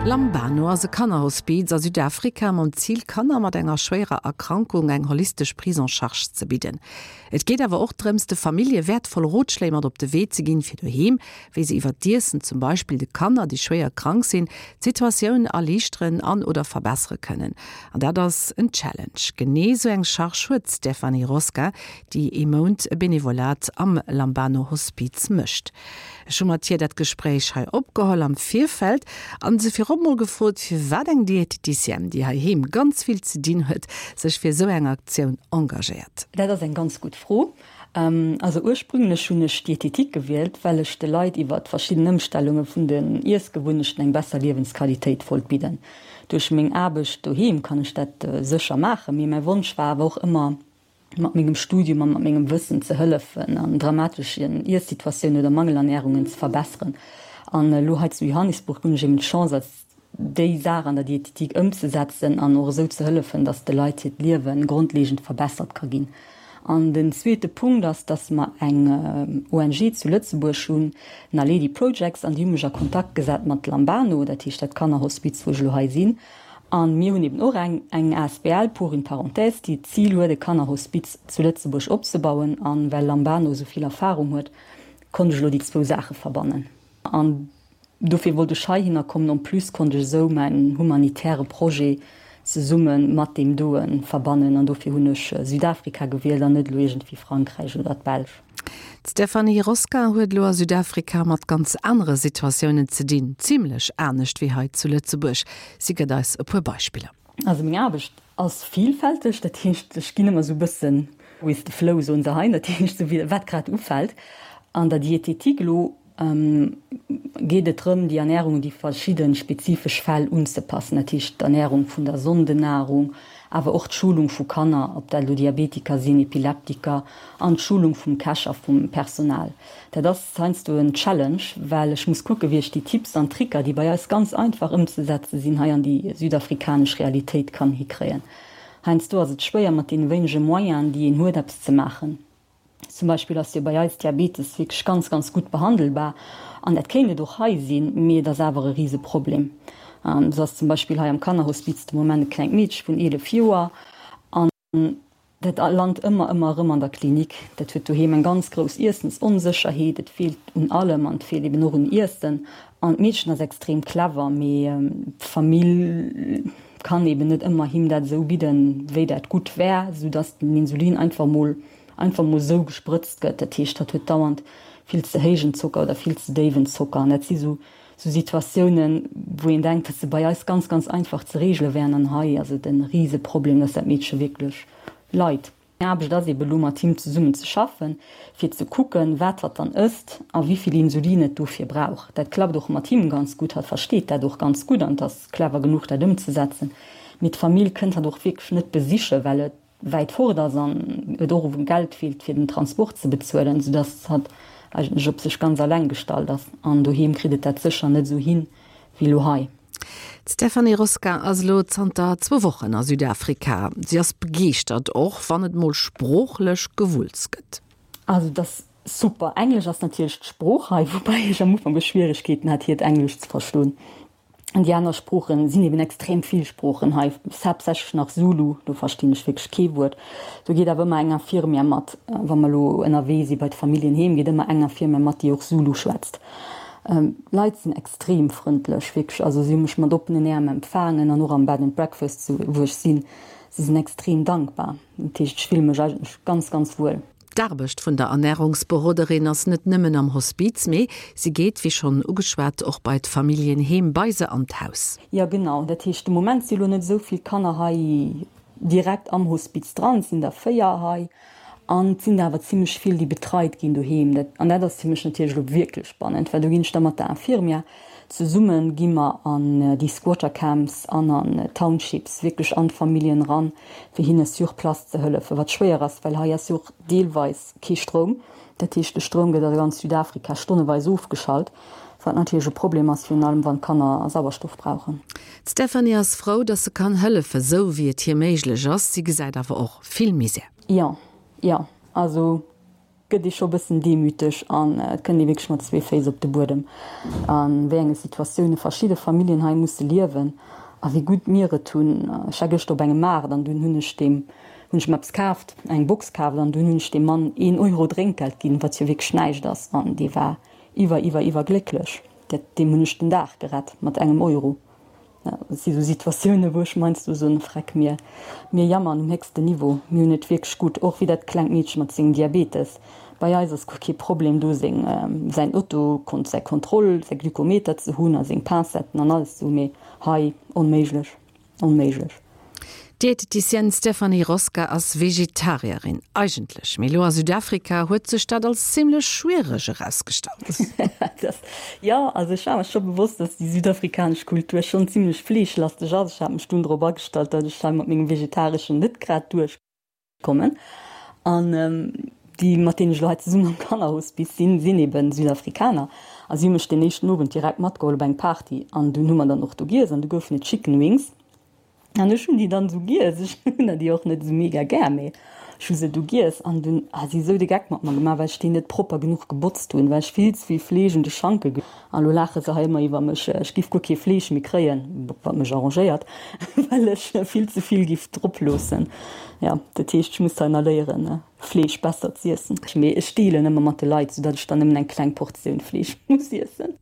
Lambano ass e Kannerhospiz a Südafrika mam Zil, Kanner mat enger schwéierer Erkrankung eng holistesch Prise en charge ze bidden. Et geet awer och drëms, de Famillje wäertvoll Rotschléi mat op de Wee ze ginn, fir doheem, wéi se iwwer d'Iessen zum Beispill de Kanner, déi schwéier krank sinn, d'Situatioun erliichteren an oder verbessere kënnen. An dat ass en Challenge. Genee sou eng Charge huet d'Stéphanie Rosca, déi ee Mount e Benevolat am Lambano Hospiz mécht. Ech hu mat hir dat Gespréich hei opgeholl am Virfeld an se virop mol gefrot, firwat eng Dieteticienne, déi heiheem ganz vill ze dinn huet, sech fir esou eng Aktioun engagéiert. Dat ass eng ganz gutt Fro. Also ursprünglech hunn ech Dietetik gewielt, well ech de Leit iwwert verschidden Ëmstellunge vun den Iessgewunnechten eng besser Liewensqualitéit wollt bidden. Duerch meng Aarbecht doheem kann ech dat sécher maachen, mee mäi Wonsch war awer och ëmmer, mat mengem Studium a mat mengem Wëssen ze hëllefen an dramateschen Iessituatiounen oder Mangelernährungen ze verbesseren. An elo hei zu Johannesburg hunn ech eben d'Chance als déi Saach an der Dietetik ëmzesetzen an och esou ze hëllefen, dass de Leit hiert Liewe grondlegend verbessert ka ginn. An den zweete Punkt ass, dass mer eng ONG zu Lëtzebuerg hunn, Naledi Projects, an déi hu mech a Kontakt gesat mat Lambano, dat heescht dat Kannerhospiz, wou ech elo hei sinn. A mir hunn eben och eng eng asbl, pour une parenthèse, déi d'Zil huet, e Kannerhospiz zu Lëtzebuerg opzebauen. A well Lambano esou vill Erfahrung huet, konnt ech elo déi zwou Saache verbannen. An dofir wollt ech heihinner kommen. En plus konnt ech esou mäin humanitäre Projet zesumme mat deem doe verbannen. An dofir hunn ech Südafrika gewielt an net elo iergendwéi Frankräich oder d'Belsch. D'Stéphanie Rosca huet elo a Südafrika mat ganz anere Situatiounen ze dinn, zimlech anescht wéi hei zu Lëtzebuerg. Si gëtt eis e puer Beispiller. Also meng Aarbecht ass villfälteg, dat heescht ech ginn ëmmer esou e bëssen with the flow, soen se hei, dat heescht esou wéi wat grad ufält. An der Dietetik elo geet et drëm, déi Ernärung un déi verschidde spezifesch Fäll unzepassen, dat heescht d'Ernärung vun der Sondennahrung, awer och d'Schulung vu Kanner, ob dat elo Diabetiker sinn, Epileptiker, an d'Schulung vum Käch a vum Personal. Dat ass heiansdo en Challenge, well ech muss kucken, wéi ech déi Tipps an Tricker, déi bei eis ganz einfach ëmzesetze sinn, hei an déi südafrikanesch Realitéit kann hikréien. Heiansdo ass et schwéier, mat deene wéinege Moyenen, déi een huet, eppes ze maachen. Zum Beispill ass jo bei eis Diabetes wierklech ganz, ganz gutt behandelbar an dat kéint et och hei sinn, mee et ass awer e Riseproblem. Esou ass zum Beispill hei am Kannerhospiz de Moment e klengt Meedche vun 11 Joer an dat lant ëmmer, ëmmer erëm an der Klinik. Dat huet doheem eng ganz grouss Iessensonsécherheet, et feelt un allem an et feelt eben och un Iessen. An d'Meedchen ass extrem clever, mee d'Famill kann eben net ëmmer him dat esou bidden, wéi dat gutt wär, soudass den Insulin einfach mol einfach mol esou gesprëtzt gëtt. Dat heescht, hatt huet dauernd vill ze héijen Zocker oder vill ze déiwen Zocker. An dat si sou sou Situatiounen, wou een denkt, dass se bei eis ganz, ganz einfach ze reegele wären. An hei ass et e Riseproblem, dass dat Meedche wierklech leit. Meng Aarbecht ass ebe lo mat him zesummen ze schaffen, fir ze kucken, wat hatt dann ësst a wéi vill Insulin et dofir brauch. Dat klappt och mat him ganz gutt, hatt versteet dat och ganz gutt an ass clever genuch dat ëmzesetzen. Mee d'Famill kënnt hatt och wierklech net besichen, well et wäit fort ass an et och u Geld feelt fir den Transport ze bezuelen, soudass hatt eigentlech op sech ganz alleng gestallt ass. An doheem kritt et dat sécher net esou hin wéi lo hei. D'Stéphanie Rosca ass elo zanter zwou Wochen a Südafrika. Si ass begeeschtert, och wann et mol sproochlech Gewulls gëtt. Also et ass super. Englesch ass natierlech d'Sprooch hei, woubäi ech am Ufank och Schwieregkeeten hat hiert Englesch ze verstoen. An déi aner Sproochen sinn eben extrem vill Sproochen hei, haaptsächlech nach Zulu, do verstinn ech wierklech kee Wuert. Do geet awer ëmmer eng Infirmière mat, wa mer elo ënnerwee si bei d'Familljen heem, geet ëmmer eng Infirmière mat, déi och Zulu schwätzt. D'Leit sinn extrem frëndlech, wierklech, also si hu mech mat oppenen Äerm empfaangen an och am Bed and Breakfast, wou ech sinn, si sinn extrem dankbar. Dat heescht, ech fille mech eigentlech ganz, ganz wuel. D'Aarbecht vun der Ernärungsberoderin ass net nëmmen am Hospiz, mee si geet, wéi schonn ugeschwat, och bei d'Familljen heem, bei se an d'Haus. Jo genau, dat heescht de Moment si lo net esou vill Kanner hei direkt am Hospiz dran, et sinn der 4 hei an et sinn der awer zimlech vill déi betreit ginn doheem. Dat an dat ass fir mech natierlech elo wierklech spannend, well do ginn ech da mat der Infirmière zesummen, gi mer an déi Squatter Camps an an Townships, wierklech an d'Familljen eran, fir hinne sur place ze hëllefen, wat schwéier ass, well hei ass jo och deelweis kee Stroum. Dat heescht, de Stroum gëtt a ganz Südafrika stonneweis ofgeschalt, wat natierlech e Problem ass, virun allem wann d'Kanner Sauerstoff brauchen. D'Stéphanie ass frou, datt se kann hëllefen, sou wéi et hir méiglech ass. Si gesäit awer och vill Misär. Jo, jo, also. gëtt ee scho bëssen demüteg an et kënnt ee wierklech mat zwee Féiss op de Buedem, a wéi enge Situatioune verschidde Familljen hei musse liewen a wéi gutt mir et hunn. Ech war gëschter op engem Maart an dunn hunn ech deem, hunn ech mer eppes kaaft, eng Box kaaft an dunn hunn ech deem Mann een Euro Drénkgeld ginn, wat jo wierklech näischt ass an dee war iwwer, iwwer, iwwer glécklech. Dat, deem hunn ech den Dag gerett mat engem Euro. Et si sou Situatiounen, wou ech meinst du soen, Freck, mir, mir jammern um héchsten Niveau, mir hunn et wierklech gutt, och wéi dat klengt Meedche mat sengem Diabetes. Bei eis ass guer kee Problem do, seng, säin Auto, säi Kontroll, säi Glykometer ze hunn a seng Pincetten an alles ze hunn, mee hei, onméiglech, onméiglech. D'Dieteticienne Stéphanie Rosca ass Vegetarierin, eigentlech, mee elo a Südafrika huet sech dat als zimmlech schwiereg erausgestallt. Jo, also ech war mer scho bewosst, dass déi südafrikanesch Kultur schonn zimmlech fleeschlasteg ass. Ech hat mech dunn drop agestallt, datt ech hei mat mengem Vegetareschen net grad duerchkommen. An déi, mat deenen ech elo hei zesummen am Kannerhospice sinn, sinn eben Südafrikaner. A si hu mech deen éischten Owend direkt matgeholl op eng Party. An dunn hu mer dann och do giess an du goufen et Chicken Wings. An ech hunn déi dann esou giess, ech hunn der déi och net esou mega gär, mee ech hu se du giess an dunn ha si esou de Geck mat mer gemaach, well ech déi net propper genuch gebotzt hunn, well ech vill ze vill Fleesch un de Schanke ge. An elo laache se hei ëmmer iwwer mech, ech giff guer kee Fleesch méi kréien, wat mech arrangéiert, well ech vill ze vill giff drop loossen. Jo, dat heescht, ech muss hei nach léieren, Fleesch besser z'iessen. Mee ech deelen ëmmer mat de Leit, soudatt ech dann nëmmen eng kleng Portioun Fleesch muss iessen.